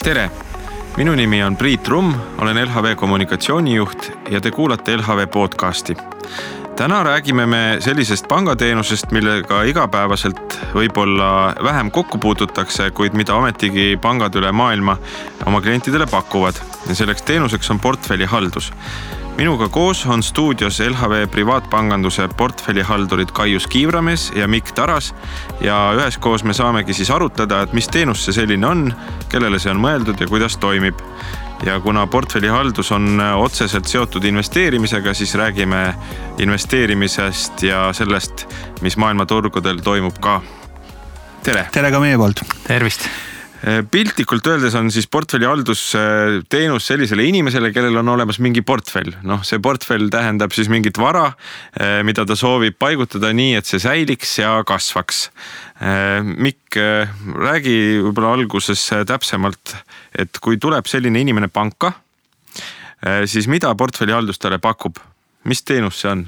Tere! Minu nimi on Priit Rumm, olen LHV kommunikatsioonijuht ja te kuulate LHV podcasti. Täna räägime me sellisest pangateenusest, millega igapäevaselt võib-olla vähem kokku puututakse, kuid mida ametigi pangad üle maailma oma klientidele pakuvad. Ja selleks teenuseks on portfellihaldus. Minuga koos on stuudios LHV privaatpanganduse portfellihaldurid Kaius Kiivramees ja Mikk Taras ja üheskoos me saamegi siis arutada, et mis teenus see selline on, kellele see on mõeldud ja kuidas toimib. Ja kuna portfellihaldus on otseselt seotud investeerimisega, siis räägime investeerimisest ja sellest, mis maailmaturgudel toimub ka. Tere! Tere ka meie poolt! Tervist! Piltlikult öeldes on siis portfellihaldus teenus sellisele inimesele, kellel on olemas mingi portfell. See portfell tähendab siis mingit vara, mida ta soovib paigutada nii, et see säiliks ja kasvaks. Mikk, räägi võib-olla alguses täpsemalt, et kui tuleb selline inimene panka, siis mida portfellihaldus talle pakub? Mis teenus see on?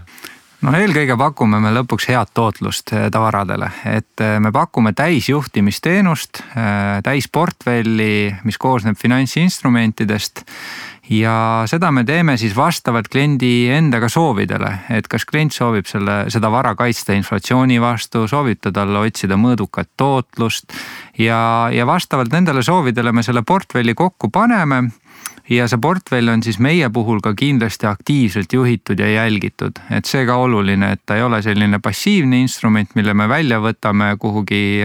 Eelkõige pakume me lõpuks head tootlust tavaradele, et me pakume täisjuhtimisteenust, täisportfelli, mis koosneb finantsinstrumentidest ja seda me teeme siis vastavalt kliendi endaga soovidele, et kas klient soovib seda vara kaitsta inflatsiooni vastu, soovib ta talle otsida mõõdukat tootlust ja vastavalt nendele soovidele me selle portfelli kokku paneme. Ja see portfell on siis meie puhul ka kindlasti aktiivselt juhitud ja jälgitud. Et see ka oluline, et ta ei ole selline passiivne instrument, mille me välja võtame kuhugi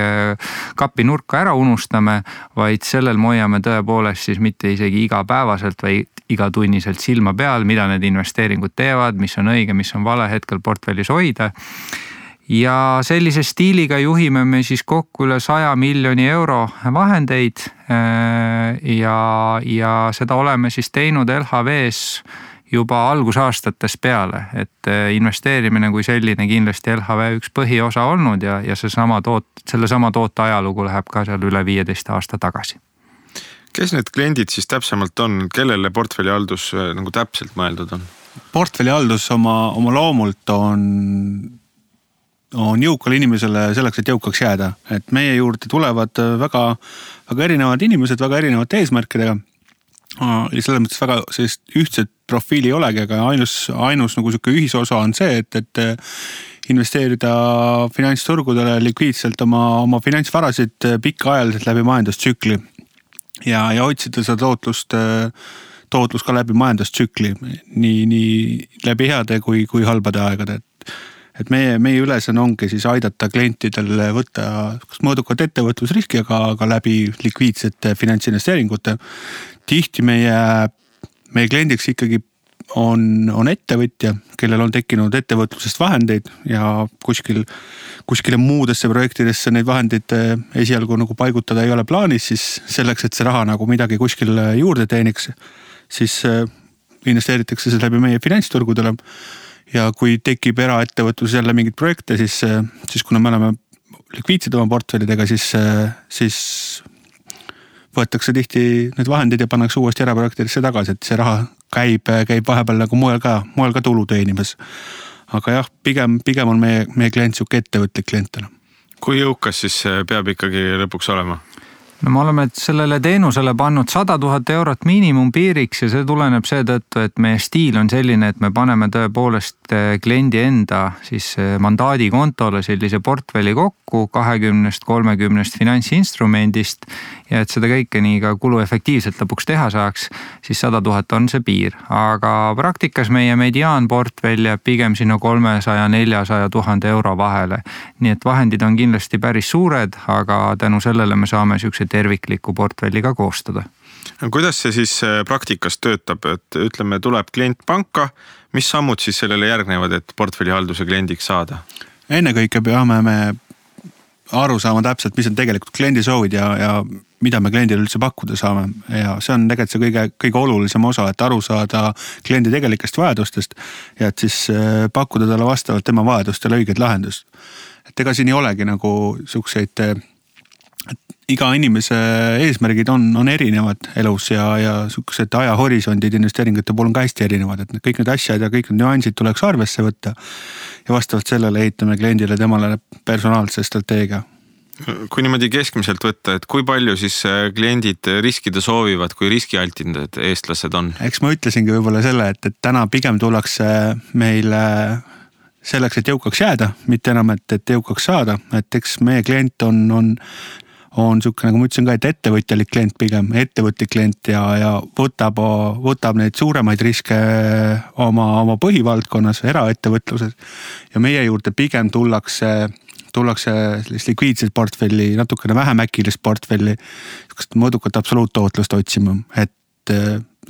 kapi nurka ära unustame, vaid sellel me hoiame tõepoolest siis mitte isegi igapäevaselt või igatunniselt silma peal, mida need investeeringud teevad, mis on õige, mis on vale hetkel portfellis hoida. Ja sellise stiiliga juhime me siis kokku üle 100 miljoni euro vahendeid ja seda oleme siis teinud LHV-s juba algusaastates peale, et investeerimine kui selline kindlasti LHV üks põhiosa olnud ja selle sama toote ajalugu läheb ka seal üle 15 aasta tagasi. Kes need kliendid siis täpsemalt on, kellele portfellihaldus nagu täpselt mõeldud on? Portfellihaldus oma loomult on jõukale inimesele selleks, et jõukaks jääda. Et meie juurde tulevad väga erinevad inimesed, väga erinevate eesmärkidega. Ja selles mõttes väga sellist ühtset profiili ei olegi, aga ainus nagu selline ühisosa on see, et investeerida finantsturgudele likviidselt oma finantsvarasid pikaajaliselt läbi majandustsükli ja otsida seda tootlus ka läbi majandustsükli, nii läbi heade kui halbade aegade. Et meie ülesanne ongi siis aidata klientidel võtta kas mõõdukat ettevõtlusriski, aga läbi likviidsete finantsinvesteeringute. Tihti meie kliendiks ikkagi on ettevõtja, kellel on tekkinud ettevõtlusest vahendeid ja kuskile muudesse projektidesse neid vahendeid esialgu nagu paigutada ei ole plaanis, siis selleks, et see raha nagu midagi kuskil juurde teeniks, siis investeeritakse see läbi meie finantsturgudele. Ja kui tekib eraettevõtlus jälle mingid projekte, siis kuna me oleme likviidsed oma portfellidega, siis võetakse tihti need vahendid ja pannakse uuesti eraprojektidesse tagasi, et see raha käib vahepeal nagu moel ka tulu teenimas. Aga jah, pigem on meie klient siuke ettevõtlik klientena. Kui jõukas siis peab ikkagi lõpuks olema? Me oleme sellele teenusele pannud 100 000 eurot miinimumpiiriks ja see tuleneb seetõttu, et meie stiil on selline, et me paneme tõepoolest kliendi enda siis mandaadi kontole sellise portfelli kokku 20-30 finantsinstrumendist ja et seda kõike nii ka kuluefektiivselt lõpuks teha saaks, siis 100 000 on see piir. Aga praktikas meie mediaanportfell jääb pigem sinna 300-400 000 euro vahele. Nii et vahendid on kindlasti päris suured, aga tänu sellele me saame siukse tervikliku portfelliga koostada. Kuidas see siis praktikas töötab, et ütleme, tuleb klient panka, mis sammud siis sellele järgnevad, et portfellihalduse kliendiks saada? Ennekõike peame me aru saama täpselt, mis on tegelikult kliendi soovid ja mida me kliendile üldse pakkuda saame. Ja see on tegelikult see kõige olulisem osa, et aru saada kliendi tegelikest vajadustest ja et siis pakkuda talle vastavalt tema vajadustele õiged lahendust. Et ega siin ei olegi nagu siukseid iga inimese eesmärgid on erinevad elus ja sukesed ajahorisondid investeeringute puhul on ka hästi erinevad, et kõik need asjad ja kõik need nüansid tuleks arvesse võtta ja vastavalt sellele ehitame kliendile temale personaalse strateegia. Kui niimoodi keskmiselt võtta, et kui palju siis kliendid riskida soovivad, kui riskialtindad eestlased on? Eks ma ütlesingi võib-olla selle, et täna pigem tullakse meile selleks, et jõukaks jääda, mitte enam, et jõukaks saada, et eks meie klient on siuke, nagu ma ütlesin ka, et ettevõtjalik klient pigem, ettevõtlik klient ja võtab neid suuremaid riske oma põhivaldkonnas, eraettevõtluses ja meie juurde pigem tullakse sellist likviidset portfelli, natukene vähem äkilist portfelli, mõõdukat absoluuttootlust otsima, et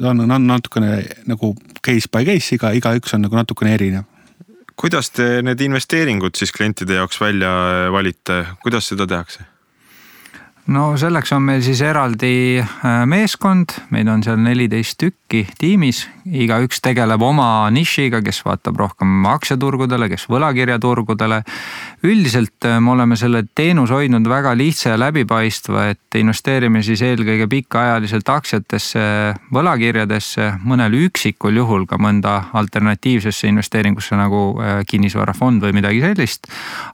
on natukene nagu case by case, iga üks on nagu natukene erinev. Kuidas te need investeeringud siis klientide jaoks välja valite, kuidas seda tehakse? No selleks on meil siis eraldi meeskond, meid on seal 14 tükki tiimis, iga üks tegeleb oma nišiga, kes vaatab rohkem aktsiaturgudele, kes võlakirjaturgudele. Üldiselt me oleme selle teenus hoidnud väga lihtsa ja läbipaistva, et investeerime siis eelkõige pikaajaliselt aktsiatesse, võlakirjadesse, mõnel üksikul juhul ka mõnda alternatiivsesse investeeringusse nagu kinnisvarafond või midagi sellist.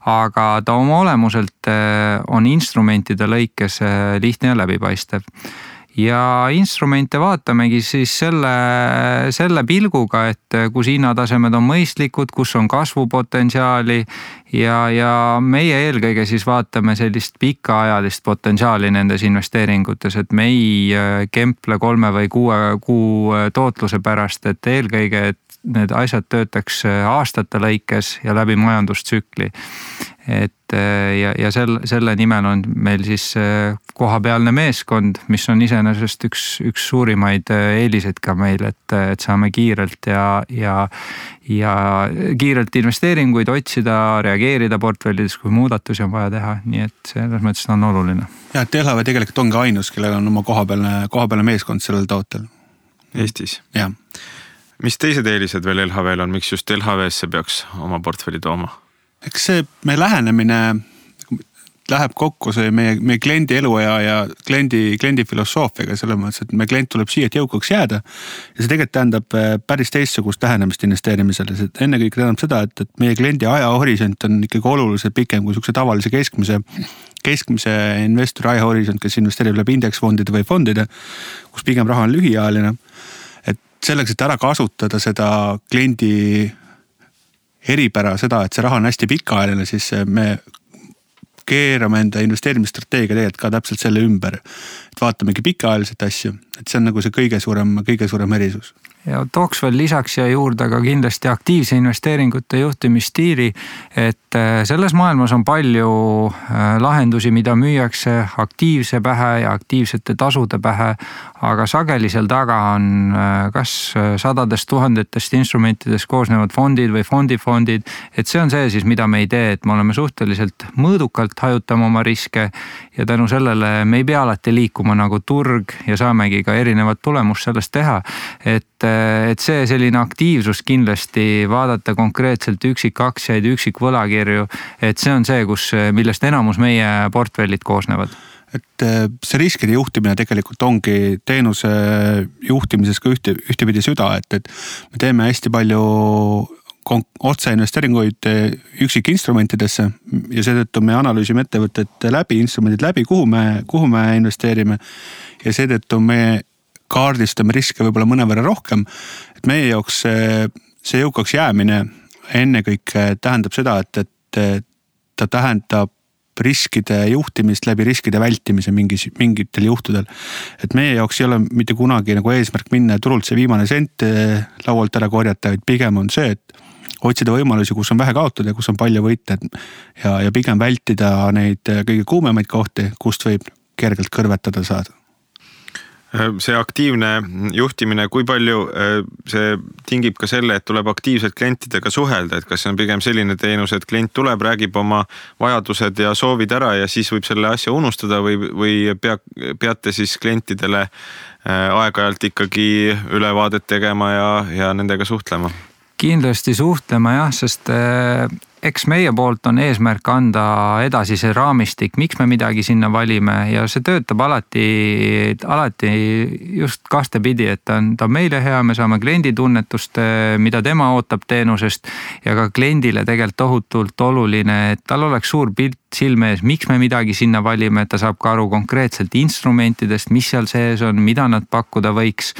Aga ta oma olemuselt on instrumentide lõikes lihtne ja läbipaistev. Ja instrumente vaatamegi siis selle pilguga, et kus hinnatasemed on mõistlikud, kus on kasvupotentsiaali ja meie eelkõige siis vaatame sellist pikaajalist potentsiaali nendes investeeringutes, et me ei kemple 3 või 6 kuu tootluse pärast, et eelkõige, et need asjad töötaks aastate lõikes ja läbi majandustsükli. Et ja selle nimel on meil siis kohapealne meeskond, mis on iseenesest üks suurimaid eeliseid ka meil, et saame kiirelt ja kiirelt investeeringuid otsida, reageerida portfellides, kui muudatusi on vaja teha, nii et selles mõttes on oluline. Ja, et LHV tegelikult ongi ainus, kellega on oma kohapealne meeskond sellel tootel. Eestis? Jah. Mis teised eelised veel LHV-l on, miks just LHV-sse peaks oma portfelli tooma? Eks see meie lähenemine läheb kokku see meie kliendi eluaja ja kliendi filosoofiaga, selles mõttes, et meie klient tuleb siia, et jõukaks jääda ja see tegelikult tähendab päris teistsugust lähenemist investeerimisele. Ennekõike tähendab seda, et meie kliendi ajahorisont on ikkagi oluliselt pikem kui sukse tavalise keskmise investori ajahorisont, kes investeerib läbi indeksfondide või fondide, kus pigem raha on lühiajaline. Et selleks, et ära kasutada seda kliendi eripära seda, et see raha on hästi pikaajaline, siis me keerame enda investeerimisstrateegia tegelikult ka täpselt selle ümber. Et vaatamegi pikaajaliselt asju, et see on nagu see kõige suurem erisus. Ja tooks veel lisaks ja juurde ka kindlasti aktiivse investeeringute juhtimisstiili, et selles maailmas on palju lahendusi, mida müüakse aktiivse pähe ja aktiivsete tasude pähe, aga sageli seal taga on kas sadadest tuhandetest instrumentidest koosnevad fondid või fondid, et see on see siis, mida me ei tee, et me oleme suhteliselt mõõdukalt hajutama oma riske ja tänu sellele me ei pea alati liikuma nagu turg ja saamegi ka erinevat tulemust sellest teha, et see selline aktiivsus kindlasti vaadata konkreetselt üksikaktsiaid, üksikvõlakirju, et see on see, millest enamus meie portfellid koosnevad. Et see riskide juhtimine tegelikult ongi teenuse juhtimises ka ühtepidi süda, et me teeme hästi palju otseinvesteeringuid üksikinstrumentidesse ja seetõttu me analüüsime ettevõtted instrumendid läbi, kuhu me investeerime ja seetõttu me kaardistame riske võib-olla mõnevõrra rohkem, et meie jaoks see jõukaks jäämine ennekõike tähendab seda, et ta tähendab riskide juhtimist läbi riskide vältimise mingitel juhtudel. Et meie jaoks ei ole mitte kunagi nagu eesmärk minna turult see viimane sent laualt ära korjata, vaid pigem on see, et otsida võimalusi, kus on vähe kaotada ja kus on palju võita ja pigem vältida neid kõige kuumemaid kohti, kust võib kergelt kõrvetada saada. See aktiivne juhtimine, kui palju see tingib ka selle, et tuleb aktiivselt klientidega suhelda, et kas see on pigem selline teenus, et klient tuleb, räägib oma vajadused ja soovid ära ja siis võib selle asja unustada või peate siis klientidele aeg-ajalt ikkagi ülevaadet tegema ja nendega suhtlema? Kindlasti suhtlema jah, sest eks meie poolt on eesmärk anda edasi see raamistik, miks me midagi sinna valime ja see töötab alati just kastepidi, et ta on meile hea, me saame kliendi tunnetust, mida tema ootab teenusest ja ka kliendile tegelikult tohutult oluline, et tal oleks suur pilt silme ees, miks me midagi sinna valime, et ta saab ka aru konkreetselt instrumentidest, mis seal sees on, mida nad pakkuda võiks.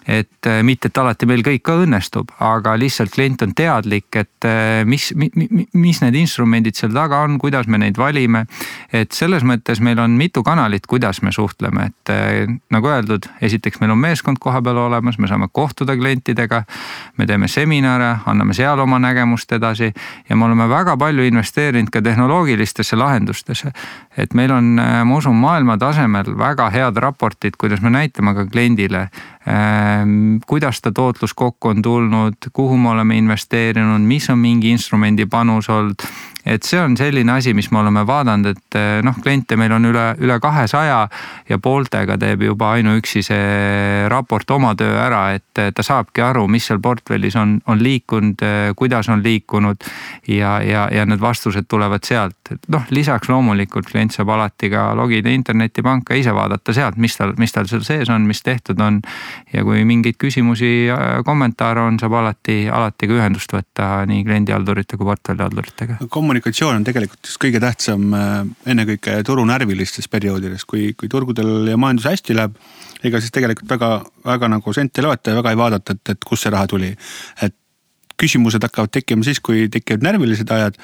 Et mitte, et alati meil kõik ka õnnestub, aga lihtsalt klient on teadlik, et mis need instrumendid seal taga on, kuidas me neid valime. Et selles mõttes meil on mitu kanalit, kuidas me suhtleme, et nagu öeldud, esiteks meil on meeskond koha peal olemas, me saame kohtuda klientidega, me teeme seminare, anname seal oma nägemust edasi ja me oleme väga palju investeerinud ka tehnoloogilistesse lahendustesse. Et meil on, ma usun, maailma tasemel väga head raportid, kuidas me näitame ka kliendile, kuidas ta tootlus kokku on tulnud, kuhu me oleme investeerinud, mis on mingi instrumendi panus olnud. Et see on selline asi, mis me oleme vaadanud, et kliente meil on üle 200 ja pooltega teeb juba ainuüksi see raport oma töö ära, et ta saabki aru, mis seal portfellis on liikunud, kuidas on liikunud ja need vastused tulevad sealt. Lisaks loomulikult klient saab alati ka logida internetipanka ise vaadata sealt, mis tal seal sees on, mis tehtud on ja kui mingeid küsimusi, kommentaare on, saab alati ka ühendust võtta nii kliendihaldurite kui portfellihalduritega. Kommunikatsioon on tegelikult just kõige tähtsam ennekõike turunärvilistes perioodides, kui turgudel ja majandus hästi läheb, ega siis tegelikult väga nagu sente loeta ja väga ei vaadata, et kus see raha tuli. Et küsimused hakkavad tekkima siis, kui tekivad närvilised ajad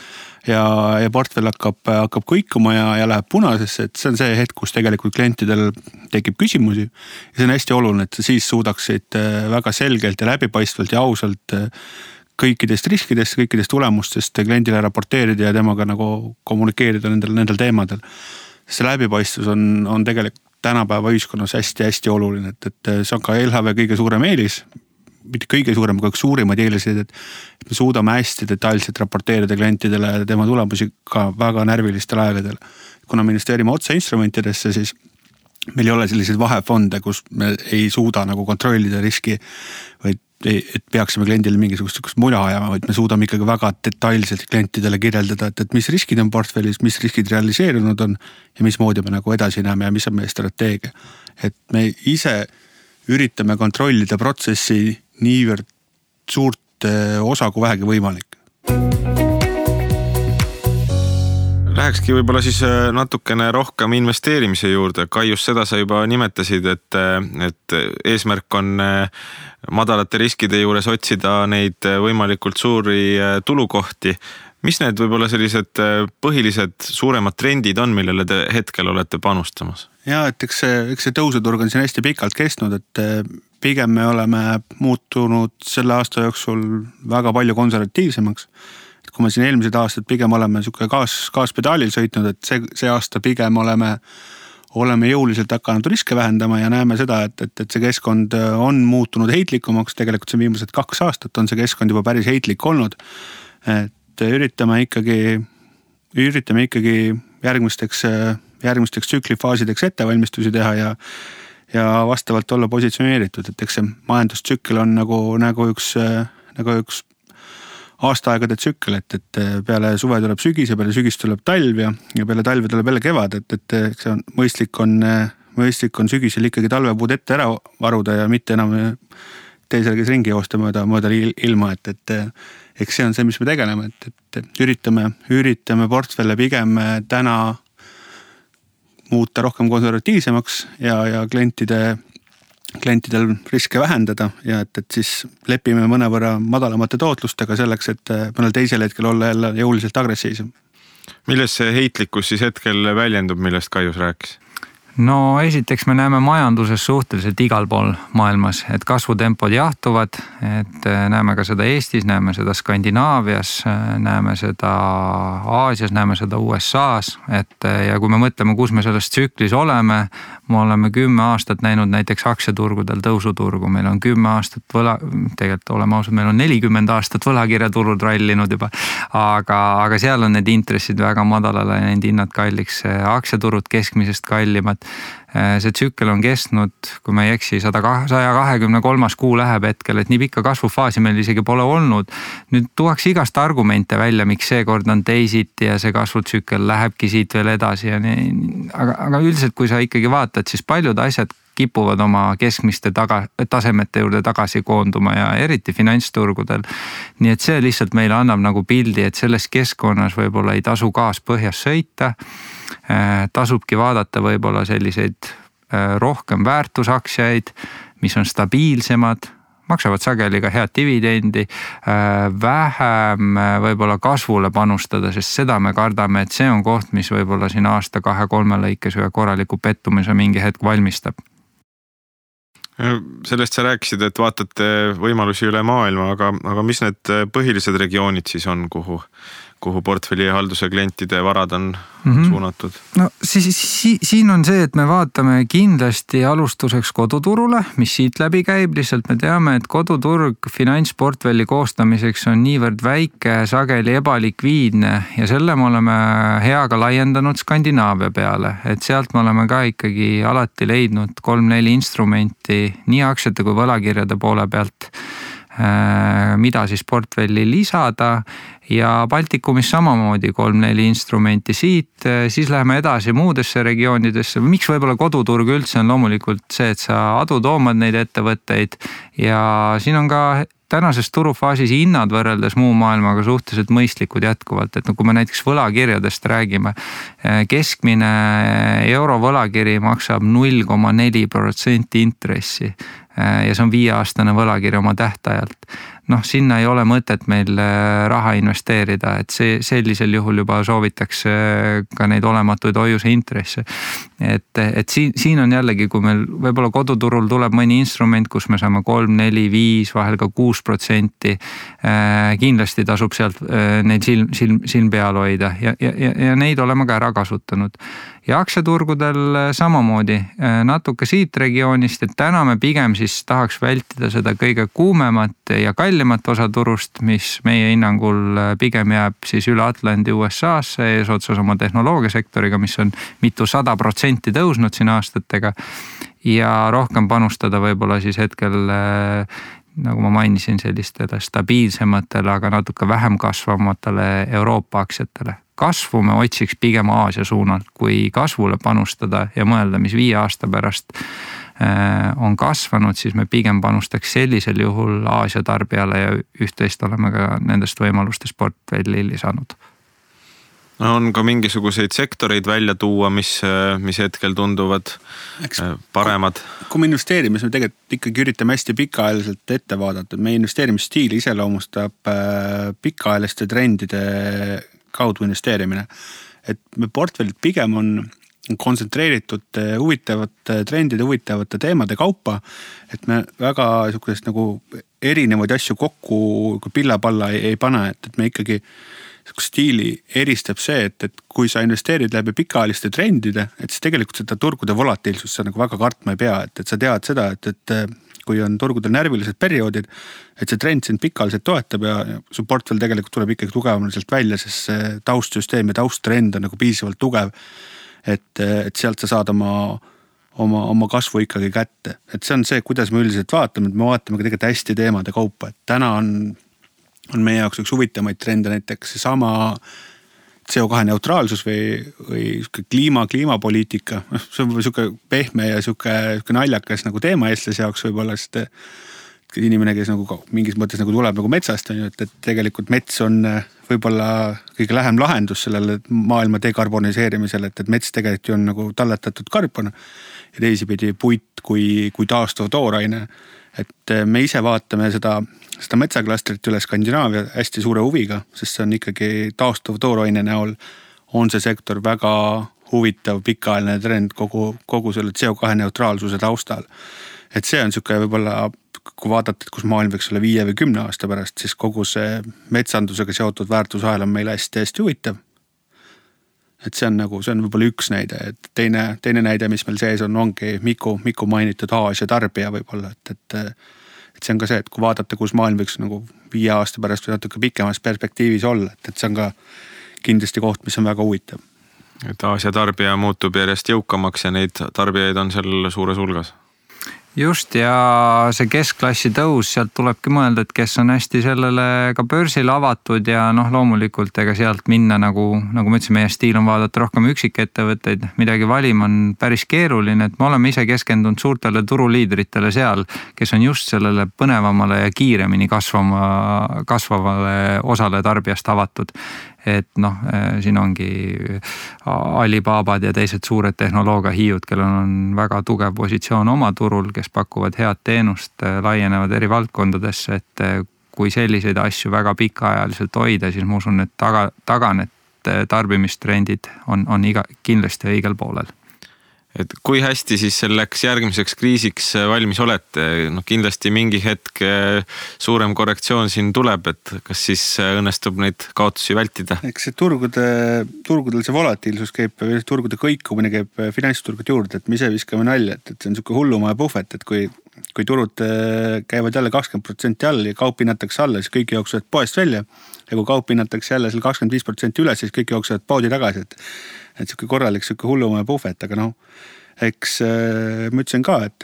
ja portfell hakkab kõikuma ja läheb punasesse, et see on see hetk, kus tegelikult klientidel tekib küsimusi ja see on hästi oluline, et siis suudaksid väga selgelt ja läbipaistvalt ja ausalt kõikidest riskidest, kõikidest tulemustest kliendile raporteerida ja temaga nagu kommunikeerida nendel teemadel. See läbipaistvus on tegelikult tänapäeva ühiskonnas hästi oluline, et see on ka LHV kõige suurem eelis, mitte kõige suurem, aga suurimad eelised, et me suudame hästi detailselt raporteerida klientidele tema tulemusi ka väga närvilistel aegadel. Kuna me investeerime otse instrumentidesse, siis meil ei ole selliseid vahefonde, kus me ei suuda nagu kontrollida riski, vaid et peaksime kliendile mingisugust mula ajama, vaid me suudame ikkagi väga detailselt klientidele kirjeldada, et mis riskid on portfellis, mis riskid realiseerunud on ja mismoodi me nagu edasi näeme ja mis on meie strateegia. Et me ise üritame kontrollida protsessi niivõrd suurt osa kui vähegi võimalik. Lähekski võib-olla siis natukene rohkem investeerimise juurde. Kaius, seda sa juba nimetasid, et eesmärk on madalate riskide juures otsida neid võimalikult suuri tulukohti. Mis need võib-olla sellised põhilised suuremad trendid on, millele te hetkel olete panustamas? Ja, et eks see tõusuturg on siin hästi pikalt kestnud, et pigem me oleme muutunud selle aasta jooksul väga palju konservatiivsemaks. Kui me siin eelmised aastad pigem oleme gaaspedaalil sõitnud, et see aasta pigem oleme jõuliselt hakanud riske vähendama ja näeme seda, et see keskkond on muutunud heitlikumaks. Tegelikult see viimased 2 aastat on see keskkond juba päris heitlik olnud. Et üritame ikkagi järgmisteks tsüklifaasideks ettevalmistusi teha ja vastavalt olla positsioneeritud, et eks see majandustsükkel on nagu üks aastaaegade tsükkel, et peale suve tuleb sügis ja peale sügis tuleb talv ja peale talve tuleb jälle kevad, et see on mõistlik on sügisel ikkagi talvepuud ette ära varuda ja mitte enam teisel ringi joosta mööda ilma, et eks see on see, mis me tegeleme, et üritame portfelle pigem täna muuta rohkem konservatiivsemaks ja klientidel riske vähendada ja et siis lepime mõnevõrra madalamate tootlustega selleks, et mõnel teisel hetkel olla jälle jõuliselt agressiivsem. Milles see heitlikkus siis hetkel väljendub, millest Kaius rääkis? No esiteks me näeme majanduses suhteliselt igal pool maailmas, et kasvutempod jahtuvad, et näeme ka seda Eestis, näeme seda Skandinaavias, näeme seda Aasias, näeme seda USAs, ja kui me mõtleme, kus me selles tsüklis oleme, me oleme 10 aastat näinud näiteks aktsiaturgudel tõusuturgu, meil on 10 aastat tegelikult oleme ausad, meil on 40 aastat võlakirjaturud rallinud juba, aga seal on need intressid väga madalale ja need hinnad kalliks, aktsiaturud keskmisest kallimad. see tsükkel on kestnud, kui ma ei eksi, 123. kuu läheb hetkel, et nii pikka kasvufaasi meil isegi pole olnud. Nüüd tuuakse igast argumente välja, miks seekord on teisiti ja see kasvutsükkel lähebki siit veel edasi ja nii. Aga üldiselt, kui sa ikkagi vaatad, siis paljud asjad kipuvad oma keskmiste tasemete juurde tagasi koonduma ja eriti finantsturgudel. Nii et see lihtsalt meile annab nagu pildi, et selles keskkonnas võib-olla ei tasu gaas põhjas sõita. Tasubki vaadata võib-olla selliseid rohkem väärtusaksiaid, mis on stabiilsemad, maksavad sageli ka head dividendi, vähem võib-olla kasvule panustada, sest seda me kardame, et see on koht, mis võib-olla siin aasta 2-3 lõikes ühe korraliku pettumise mingi hetk valmistab. Sellest sa rääkisid, et vaatate võimalusi üle maailma, aga mis need põhilised regioonid siis on, kuhu portfelli halduse klientide varad on suunatud? No siin on see, et me vaatame kindlasti alustuseks koduturule, mis siit läbi käib. Lihtsalt me teame, et koduturg finantsportfelli koostamiseks on niivõrd väike, sageli ebalikviidne ja selle me oleme heaga laiendanud Skandinaavia peale. Et sealt me oleme ka ikkagi alati leidnud 3-4 instrumenti nii aktsiate kui võlakirjade poole pealt, mida siis portfelli lisada ja Baltikumis samamoodi 3-4 instrumenti siit, siis läheme edasi muudesse regioonidesse. Miks võib-olla koduturg üldse on loomulikult see, et sa adutoomad neid ettevõtteid ja siin on ka tänases turufaasis hinnad võrreldes muu maailmaga suhteliselt mõistlikud jätkuvalt, et kui me näiteks võlakirjadest räägime, keskmine euro võlakiri maksab 0,4% intressi ja see on 5-aastane võlakiri oma tähtajalt. Sinna ei ole mõtet meil raha investeerida, et sellisel juhul juba soovitakse ka neid olematuid hoiuse intresse. Et siin on jällegi, kui meil võib-olla koduturul tuleb mõni instrument, kus me saame 3, 4, 5, vahel ka 6%, kindlasti tasub sealt neid silm peal hoida ja neid oleme ka ära kasutanud. Ja aktsiaturgudel samamoodi natuke siit regioonist, et täna me pigem siis tahaks vältida seda kõige kuumemat ja kallimat osa turust, mis meie hinnangul pigem jääb siis üle Atlandi USA-sse eesotsas oma tehnoloogiasektoriga, mis on mitu 100% tõusnud siin aastatega ja rohkem panustada võib-olla siis hetkel, nagu ma mainisin, sellistele stabiilsematele, aga natuke vähem kasvamatele Euroopa aktsiatele. Kasvu me otsiks pigem Aasia suunalt, kui kasvule panustada ja mõelda, mis 5 aasta pärast on kasvanud, siis me pigem panustaks sellisel juhul Aasia tarbijale ja üht-teist oleme ka nendest võimalustest portfelli lisanud. On ka mingisuguseid sektoreid välja tuua, mis hetkel tunduvad paremad? Kui me investeerime, siis me tegelikult ikkagi üritame hästi pikaajaliselt ette vaadata. Meie investeerimisstiili iseloomustab pikaajaliste trendide kaudu investeerimine. Et me portfellid pigem on kontsentreeritud huvitavate trendide, huvitavate teemade kaupa, et me väga nagu erinevaid asju kokku kui pilla-palla ei pane, et me ikkagi stiili eristab see, et kui sa investeerid läbi pikaajaliste trendide, et siis tegelikult seda turgude volatiilsust sa nagu väga kartma ei pea, et sa tead seda, et kui on turgudel närvilised perioodid, et see trend sind pikaajaliselt toetab ja su portfell tegelikult tuleb ikkagi tugevamalt välja, sest see taustsüsteem ja tausttrend on nagu piisavalt tugev, et sealt sa saad oma kasvu ikkagi kätte. Et see on see, kuidas me üldiselt vaatame, et me vaatame ka tegelikult hästi teemade kaupa, et täna on meie jaoks üks huvitamaid trende näiteks sama CO2 neutraalsus või kliimapoliitika. See on siuke pehme ja siuke naljakas nagu teema eestlase jaoks võib-olla, sest inimene, kes nagu mingis mõttes nagu tuleb nagu metsast, et tegelikult mets on võib-olla kõige lähem lahendus sellele maailma dekarboniseerimisele, et mets tegelikult on nagu talletatud karbon ja teisipidi puit kui taastuv tooraine. Et me ise vaatame seda metsaklastrit üle Skandinaavia hästi suure huviga, sest see on ikkagi taastuv tooraine näol on see sektor väga huvitav pikaajaline trend kogu selle CO2 neutraalsuse taustal. Et see on siuke võib-olla, kui vaadata, kus maailm võiks olla 5 või 10 aasta pärast, siis kogu see metsandusega seotud väärtusahel on meil hästi huvitav. Et see on võib-olla üks näide, et teine näide, mis meil sees ongi Miku mainitud Aasia tarbija võib-olla, et see on ka see, et kui vaadata, kus maailm võiks nagu 5 aasta pärast või natuke pikemas perspektiivis olla, et see on ka kindlasti koht, mis on väga huvitav. Et Aasia tarbija muutub järjest jõukamaks ja neid tarbijaid on seal suures hulgas. Just, ja see keskklassi tõus, sealt tulebki mõelda, et kes on hästi sellele ka börsil avatud ja loomulikult ega sealt minna nagu ma ütlesin, meie stiil on vaadata rohkem üksikettevõtteid, midagi valima on päris keeruline, et me oleme ise keskendunud suurtele turuliidritele seal, kes on just sellele põnevamale ja kiiremini kasvavale osale tarbijast avatud. Et siin ongi Alibabad ja teised suured tehnoloogiahiiud, kellel on väga tugev positsioon oma turul, kes pakuvad head teenust, laienevad eri valdkondadesse, et kui selliseid asju väga pikaajaliselt hoida, siis ma usun, et taga need tarbimistrendid on kindlasti õigel poolel. Et kui hästi siis selleks järgmiseks kriisiks valmis olete? Kindlasti mingi hetk suurem korrektsioon siin tuleb, et kas siis õnnestub neid kaotusi vältida? Eks see turgudel see volatiilsus käib, turgude kõikumine käib finantsturgud juurde, et me ise viskame nalja, et see on niisugune hullumaja puhvet, et kui turud käivad jälle 20% all ja kaup hinnatakse alla, siis kõik jooksuvad poest välja. Ja kui kaup hinnatakse jälle 25% üles, siis kõik jooksuvad poodi tagasi, et niisugune korralik hullumaja puhvet, aga eks ma ütlesin ka, et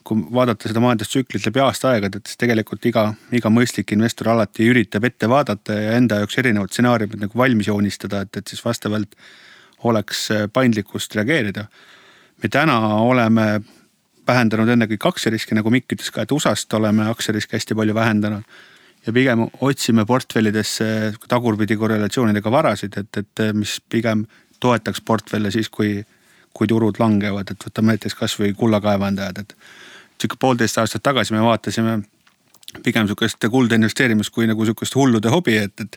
kui vaadata seda majandustsüklit läbi aasta aegad, et tegelikult iga mõistlik investor alati üritab ette vaadata ja enda jaoks erinevad stsenaariumid nagu valmis joonistada, et siis vastavalt oleks paindlikkust reageerida. Me täna oleme vähendanud ennekõike aktsiariski, nagu Mikk ütles ka, et USA-st oleme aktsiariski hästi palju vähendanud ja pigem otsime portfellidesse tagurpidi korrelatsioonidega varasid, et mis pigem toetaks portfelle siis, kui turud langevad, et võtame näiteks kas või kullakaevandajad, et 1,5 aastat tagasi me vaatasime pigem niisugust kulda investeerimist kui nagu niisugust hullude hobi, et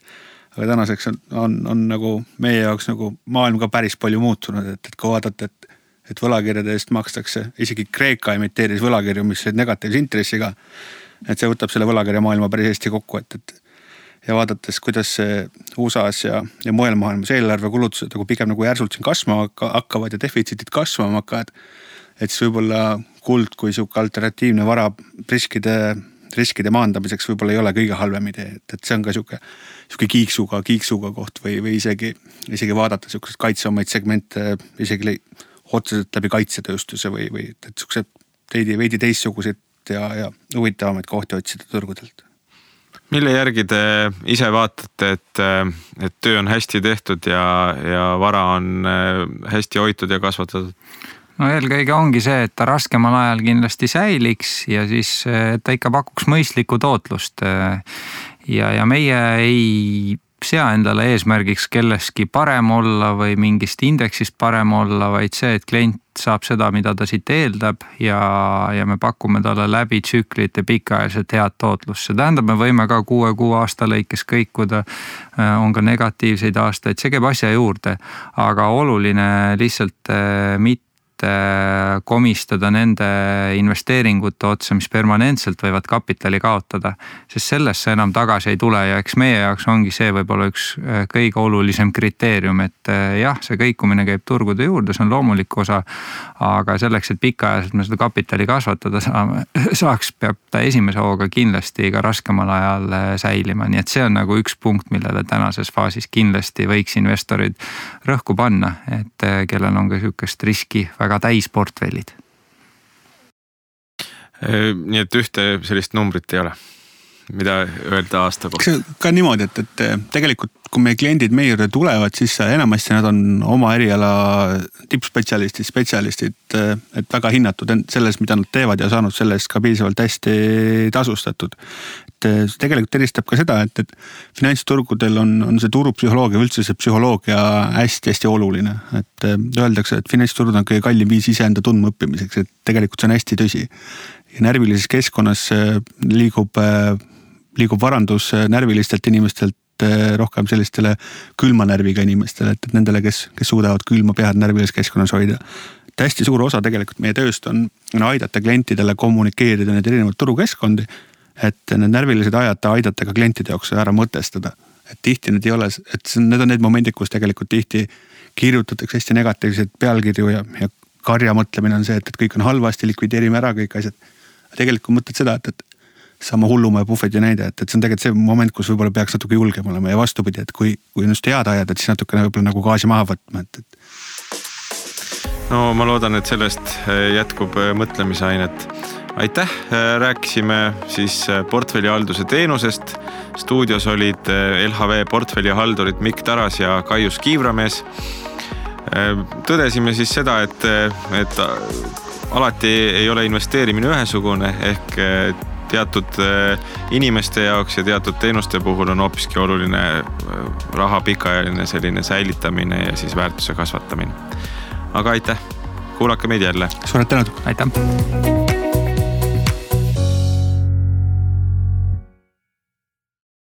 aga tänaseks on nagu meie jaoks nagu maailm ka päris palju muutunud, et kui vaadata, et võlakirjade eest makstakse, isegi Kreeka imiteeris võlakirju, mis olid negatiivse intressiga, et see võtab selle võlakirja maailma päris hästi kokku, ja vaadates, kuidas USA-s ja mujal maailmas eelarvekulutused nagu pigem nagu järsult siin kasvama hakkavad ja defitsiitid kasvama hakkavad, et siis võib-olla kuld kui siuke alternatiivne vara riskide maandamiseks võib-olla ei ole kõige halvem idee, et see on ka siuke kiiksuga koht või isegi vaadata siukseid kaitsevamaid segmente isegi otseselt läbi kaitsetööstuse või et siuksed veidi teistsuguseid ja huvitavamaid kohti otsida turgudelt. Mille järgi te ise vaatate, et töö on hästi tehtud ja vara on hästi hoitud ja kasvatatud? Eelkõige ongi see, et ta raskemal ajal kindlasti säiliks ja siis ta ikka pakuks mõistlikku tootlust. Ja meie ei sea endale eesmärgiks kelleski parem olla või mingist indeksist parem olla, vaid see, et klient saab seda, mida ta siit eeldab ja me pakume talle läbi tsüklite pikaajaliselt head tootlust. See tähendab, me võime ka 6 aasta lõikes kõikuda, on ka negatiivseid aastaid, see käib asja juurde, aga oluline lihtsalt mitte komistada nende investeeringute otsa, mis permanentselt võivad kapitali kaotada, sest sellest enam tagasi ei tule ja eks meie jaoks ongi see võib-olla üks kõige olulisem kriteerium, et jah, see kõikumine käib turgude juurde, see on loomulik osa, aga selleks, et pikaajaliselt me seda kapitali kasvatada saaks, peab ta esimese hooga kindlasti ka raskemal ajal säilima, nii et see on nagu üks punkt, millele tänases faasis kindlasti võiks investorid rõhku panna, et kellel on ka niisugust riski väga täisportfellid. Nii et ühte sellist numbrit ei ole, mida öelda aasta kohta? Ka niimoodi, et tegelikult kui meie kliendid meie juurde tulevad, siis enamasti nad on oma eriala tippspetsialistid, et väga hinnatud selles, mida nad teevad ja saanud sellest ka piisavalt hästi tasustatud. Et tegelikult eristab ka seda, et finantsturgudel on see turupsühholoogia, üldse see psühholoogia hästi oluline. Et öeldakse, et finantsturud on kõige kallim viis iseenda tundma õppimiseks, et tegelikult see on hästi tõsi. Ja närvilises keskkonnas liigub varandus närvilistelt inimestelt rohkem sellistele külma närviga inimestele, et nendele, kes suudavad külma pead närvilises keskkonnas hoida. Et hästi suur osa tegelikult meie tööst on aidata klientidele kommunikeerida need erinevad turukeskkondi, et need närvilised aidata ka klientide jaoks ära mõtestada. Et tihti need ei ole, et need on need momendid, kus tegelikult tihti kirjutatakse hästi negatiivseid pealkirju ja karja mõtlemine on see, et kõik on halvasti, likvideerime ära kõik asjad. Tegelikult mõtled seda, et sama hullumaja puhveti näide, et see on tegelikult see moment, kus võib-olla peaks natuke julgem olema ja vastupidi, et kui just head ajad, et siis natukene võib-olla nagu gaasi maha võtma, et. No ma loodan, et sellest jätkub mõtlemisainet. Aitäh, rääkisime siis portfellihalduse teenusest. Stuudios olid LHV portfellihaldurid Mikk Taras ja Kaius Kiivramees. Tõdesime siis seda, et alati ei ole investeerimine ühesugune ehk teatud inimeste jaoks ja teatud teenuste puhul on hoopiski oluline raha pikaajaline selline säilitamine ja siis väärtuse kasvatamine. Aga aitäh, kuulake meid jälle. Suured tänud. Aitäh.